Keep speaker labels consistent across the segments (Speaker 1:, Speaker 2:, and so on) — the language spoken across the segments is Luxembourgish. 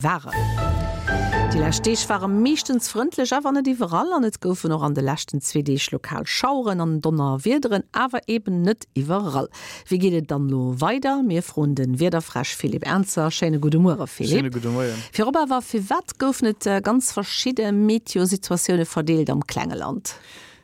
Speaker 1: Waren. Déi lescht Deeg ware meeschtens frëndlech, awer net iwwerall an et goufen och an de leschten zwee Deeg lokal Schaueren an Donnerwiederen, awer eben net iwwerall. Wéi geet et dann elo weider? Mir froen de Wiederfräsch Philippe Ernzer. Schéine gudde Muere Philippe.
Speaker 2: Schéine gudde Moien.
Speaker 1: Virop awer, firwat goufen et ganz verschidde Meteosituatioune verdeelt am klenge Land?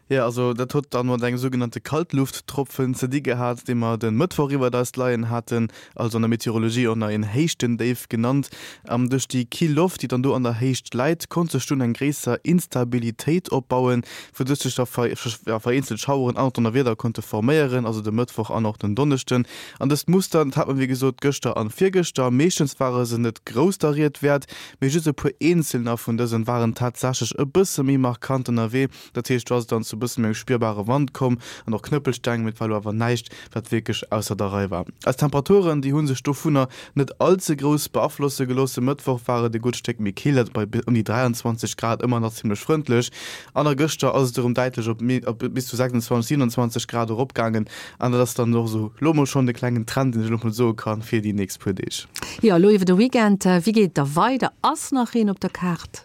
Speaker 2: Jo, also dat huet dann mat engem sougenannte Kaltlufttropfen ze di gehat, dee mer de Mëttwoch iwwert eis leien haten, also an der Meteorologie och nach een Héichtendéif genannt. An duerch déi kill Loft, déi dann do an der Héicht läit, konnt sech dunn eng gréisser Instabilitéit opbauen, wouduerch sech da vereenzelt Schaueren an och Donnerwieder konnte forméieren, also de Mëttwoch an och den Donneschden. An dëst Muster, dat hat mer wéi gesot gëschter an virgëschter. Meeschtens ware se net grouss der Ried wäert, mee just e puer eenzelner vun dësen waren tatsächlech e bësse méi markant ënnerwee. Dat heescht, do ass et dann zu e bësse méi engem spierbare Wand komm an och Knëppelsteng, mee et war elo awer näischt, wat wierklech ausser der Rei war. Eis Temperaturen, déi hu sech dovunner net all ze grouss beaflosse gelooss. E Mëttwoch war et e gutt Stéck méi kill, dat bei ëm déi 23 Grad, ëmmer nach zimmlech frëndlech. An a gëschter ass et erëm däitlech op op bis zu 26, 27 Grad eropgaangen an dat ass dann och esou elo mol schonn de klengen Trend, deen ech elo mol soe kann fir déi nächst puer Deeg.
Speaker 1: Jo, elo iwwer de Weekend, wéi geet et da weider? Ass nach een op der Kaart?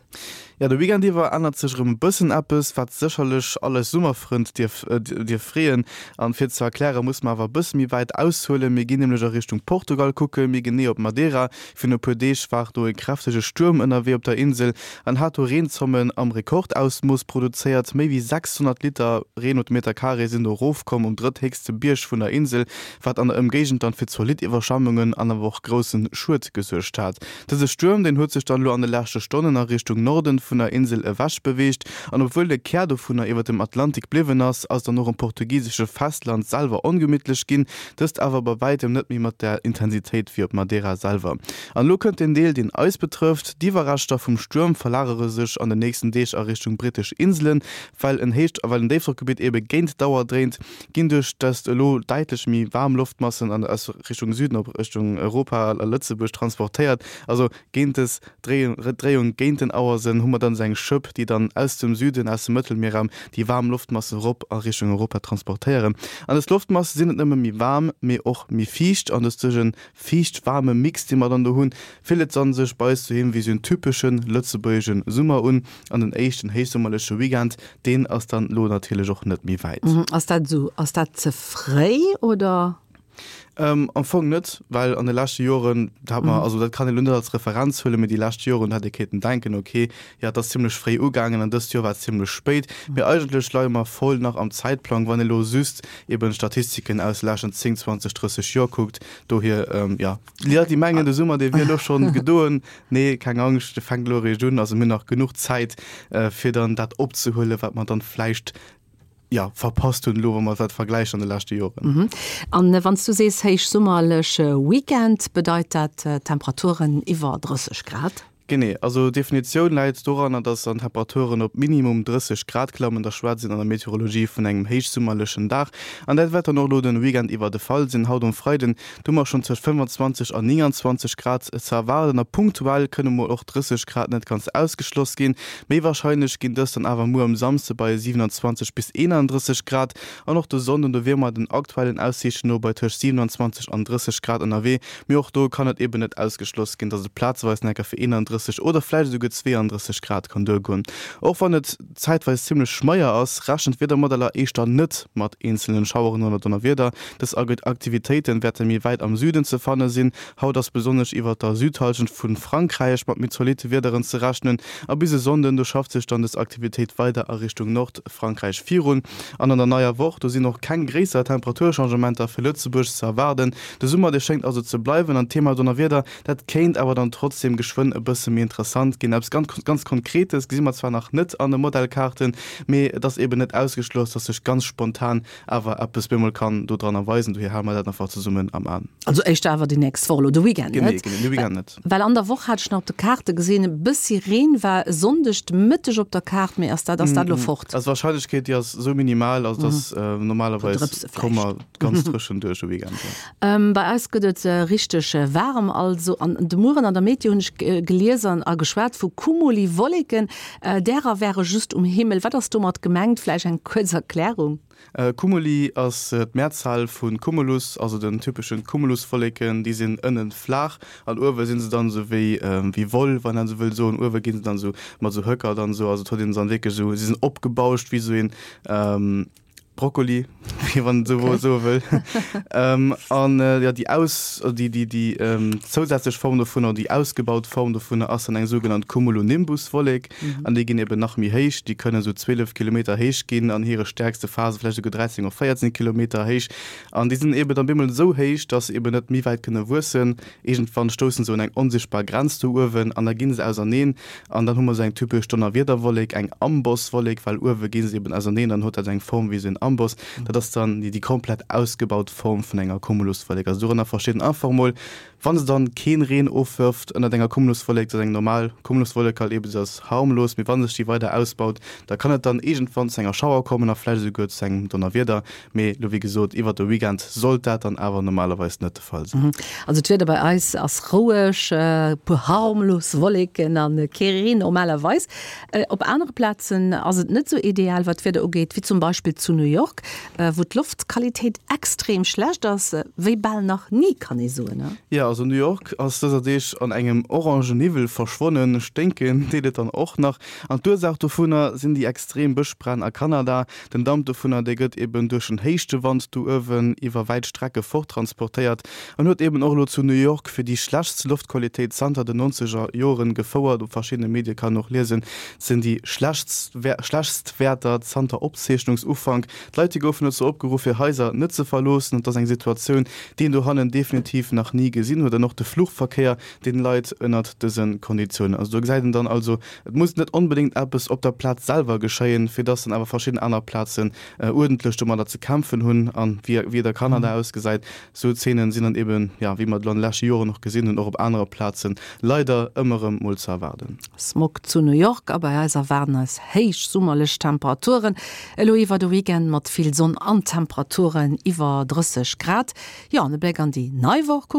Speaker 2: Jo, de Weekend iwwer ännert sech erëm e bëssen eppes, wat sécherlech all eis Summerfrënd dierf dierf freeën. An fir et ze erklären, musse mer awer e bësse méi wäit aushuelen. Mir ginn nämlech a Richtung Portugal kucken, méi genee op Madeira. Virun e puer Deeg war do e kräftege Stuerm ënnerwee op der Insel an hat do Reenzommen am Rekordausmooss produzéiert. Méi wéi 600 Liter Reen op de Meter Carré sinn do erofkomm um drëtthéchste Bierg vun der Insel, wat an der Ëmgéigend dann fir zolidd Iwwerschwemmungen an awer och grousse Schued gesuergt hat. Dëse Stuerm, deen huet sech dann elo an de leschte Stonnen a Richtung Norden vun der Insel ewech beweegt, an obwuel de Kär dovunner iwwer dem Atlantik bliwwen ass, ass dann och um portugisesche Festland selwer ongemittlech ginn, dëst awer bei wäitem net méi mat där Intensitéit wéi op Madeira selwer. An elo kënnt den Deel, deen eis betrëfft, D'Iwwerreschter vum Stuerm verlagere sech an den nächsten Deeg a Richtung brittesch Inselen, well en Héicht well en Déifdrockgebitt ebe géint d'Auer dréint. ginn duerch dëst elo däitlech méi waarm Loftmassen an aus Richtung Süden op Richtung Europa a Lëtzebuerg transportéiert. Also géint dës Dréiung géint den Auersënn hu mer dann esou eng Schëpp, déi dann aus dem Süden, aus dem Mëttelmierraum déi waarm Loftmassen erop a Richtung Europa transportéieren. An dës Loftmasse sinn net nëmme méi waarm, mee och méi fiicht an dës duerch e fiicht-waarme Mix, dee mer dann do hunn, fillt et dann sech bei eis doheem wéi esou en typesche lëtzebuergesche Summer un. An den éischten héichsummerleche Weekend, deen ass dann elo natierlech och net méi wäit.
Speaker 1: Ass dat esou? Ass dat ze fréi oder?
Speaker 2: Am Fong net, well an de leschte Joren hat mer, also dat kann een elo net als Referenz huelen, mee déi lescht Joren hätt ee kéinten denken, okay, jo et ass zimmlech fréi ugaangen an dëst Joer war et zimmlech spéit. Mee eigentlech leie mer voll nach am Zäitplang, wann ee elo just eben d'Statistiken aus de leschten 10, 20, 30 Joer kuckt. Dohier, jo, déi Leit, déi mengen, de Summer, dee wier elo schonn gedoen, Nee, keng Angscht, de fänkt elo eréischt un. Also mir hunn nach genuch Zäit, fir dann dat opzehuelen, wat mer dann vläicht, jo, verpasst hunn elo, wa mer dat vergläichen an de leschte Joren.
Speaker 1: An wann s du sees héichsummerleche Weekend, bedeit dat Temperaturen iwwer 30 Grad?
Speaker 2: Genee. Also d'Definitioun läit doranner, dass dann d'Temperaturen op minimum 30 Grad klammen. Da schwätzt een an der Meteorologie vun engem héichsummerlechen Dag. An dat wäert dann och elo den Weekend iwwer de Fall sinn. Haut um Freiden Do hu mer schonn tëscht 25 an 29 Grad ze erwaarden a punktuell kënne mol och 30 Grad net ganz ausgeschloss ginn. Méi warscheinlech ginn dës dann awer muer um Samsde bei 27 bis 31 Grad an och de Sonnden, do wiere mer den aktuellen Aussiichten no bei tëscht 27 an 30 Grad ënnerwee. Mee och do kann et eben net ausgeschloss ginn, dass et plazeweis nach eng Kéier fir 31 oder vläicht esouguer 32 Grad kann duergoen. Och wann et zäitweis zimmlech schmeier ass, rechnen d'Wiedermodeller éischter net mat eenzelnen Schaueren oder Donnerwieder. Dës Aktivitéiten wäerte méi wäit am Süden ze fanne sinn. Haut ass besonnesch iwwert der Südhallschent vu Frankräich mat méi zolitte Wiederen ze rechnen a bis e Sonnden, do schafft sech dann dës Aktivitéit weider a Richtung Nordfrankräich virun. An an der neier Woch, do sinn och keng gréisser Temperaturchangementer fir Lëtzebuerg ze erwaarden. De Summer, dee schéngt also ze bleiwen an d'Thema Donnerwieder, Dat kéint awer dann trotzdem geschwënn e bësse méi interessant ginn. Eppes ganz, ganz Konkretes gesi mer zwar nach net an de Modellkaarten, mee et ass eben net ausgeschloss, dass sech ganz spontan awer eppes bemol kann do dran erweisen. Dohier hale mer dat einfach zesummen am An.
Speaker 1: Also éischter awer déi nächst Woch, elo de Weekend
Speaker 2: net? Genee, genee, de Weekend net.
Speaker 1: Well an der Woch hat ech nach op de Kaarte gesinn, e bëssi Reen war e Sonndeg de Mëtteg op der Kaart, mee ass dat, ass dat elo fort?
Speaker 2: Also d'Warscheinlechkeet, déi ass esou minimal, also dass normalerweis komme mer ganz dréchen duerch de Weekend, jo.
Speaker 1: Bei eis gëtt et richteg waarem also. An de Mueren an der Meteo hunn ech gelies. gelies an a geschwat vu Cumuli-Wolleken. Därer wäre just um Himmel. Wat ass domat gemengt? Vläicht eng kuerz Erklärung?
Speaker 2: Cumuli ass d'Mehrzahl vu Cumulus, also den typeschen Cumuluswolleken. Déi sinn ënnen flaach an uewe sinn se dann esou wéi wéi Woll, wann een esou wëll soen. Uewe ginn se dann esou mat esou Höcker dann esou, also et huet een se dann wierklech esou, si sinn opgebauscht wéi esou een Brokkoli, wéi wann een esou soe wëll. An jo, déi aus, déi déi déi zousätzlech Form dovunner, déi ausgebaut Form dovunner ass dann eng sougenannt Cumulonimbuswollek. An déi ginn eben nach méi héich, déi kënnen esou 12 Kilometer héich ginn, an hire stäerkste Phase vläicht esouguer 13 oder 14 Kilometer héich. An déi sinn eben dann bemol esou héich, dass se eben net méi wäit kënne wuessen. Iergendwann stousse se un eng onsichtbar Grenz do uewen an da gi se auserneen. An dann hu mer esou eng typesch Donnerwiederwollek, eng Ambosswollek, well uewe gi se eben auserneen, dann huet dat eng Form wéi esou en Amboss. Dat ass dann déi komplett ausgebaut Form vun enger Cumuluswollek. Also dorënner versteet een einfach emol, Wann se dann keen Reen ofwërft ënnert enger Cumuluswollek, dat ass eng normal Cumuluswollek halt eben, se ass harmlos, mee wann sech déi weider ausbaut, da kann et dann iergendwann zu enger Schauer kommen a vläicht esouguer zu engem Donnerwieder. Mee lo wéi gesot, iwwert de Weekend sollt dat dann awer normalerweis net de Fall sinn.
Speaker 1: Also d'Wieder bei eis ass roueg, e puer harmlos Wolleken a kee Reen normalerweis. Op anere Plazen ass et net esou ideal wat d'Wieder ugeet, wéi zum Beispill zu New York, wou d'Loftqualitéit extrem schlecht ass, wéi bal nach ni, kann ee soen.
Speaker 2: Jo, also New York ass dëser Deeg an engem orange Niwwel verschwonnen. Sténken deet et dann och nach. An d'Ursaach dovunner sinn déi extrem Bëschbränn a Kanada. Den Damp dovunner, dee gëtt eben duerch en Héichtewand do uewen iwwer wäit Strecke forttransportéiert an huet eben och elo zu New York fir déi schlechtst Loftqualitéit zanter den nonzeger Joren gefouert. Op verschiddene Medie kann een och liesen, et sinn déi schlechtst Wäerter zanter Opzeechnungsufank. D'Leit, déi goufen dozou opgeruff, hir Haiser net ze verloossen. Et ass eng Situatioun, déi een dohannen definitiv nach ni gesinn huet. An och de Fluchverkéier, deen leit ënnert dëse Konditiounen. Also do gesäit een dann also, Et muss net onbedéngt eppes op der Plaz selwer geschéien, fir dass dann awer verschidden aner Plazen uerdentlech domadder ze kämpfen hunn. An wéi wéi et a Kanada ausgesäit, esou Zeenen sinn dann eben, jo, wéi mer et elo an de leschte Joren och gesinn hunn, och op anere Plazen leider ëmmer erëm mol ze erwaarden.
Speaker 1: Smog zu New York a bei eis erwaarden eis héich summerlech Temperaturen elo iwwer de Weekend mat vill Sonn an Temperaturen iwwer 30 Grad. Jo, an e Bléck an déi nei Woch kucke.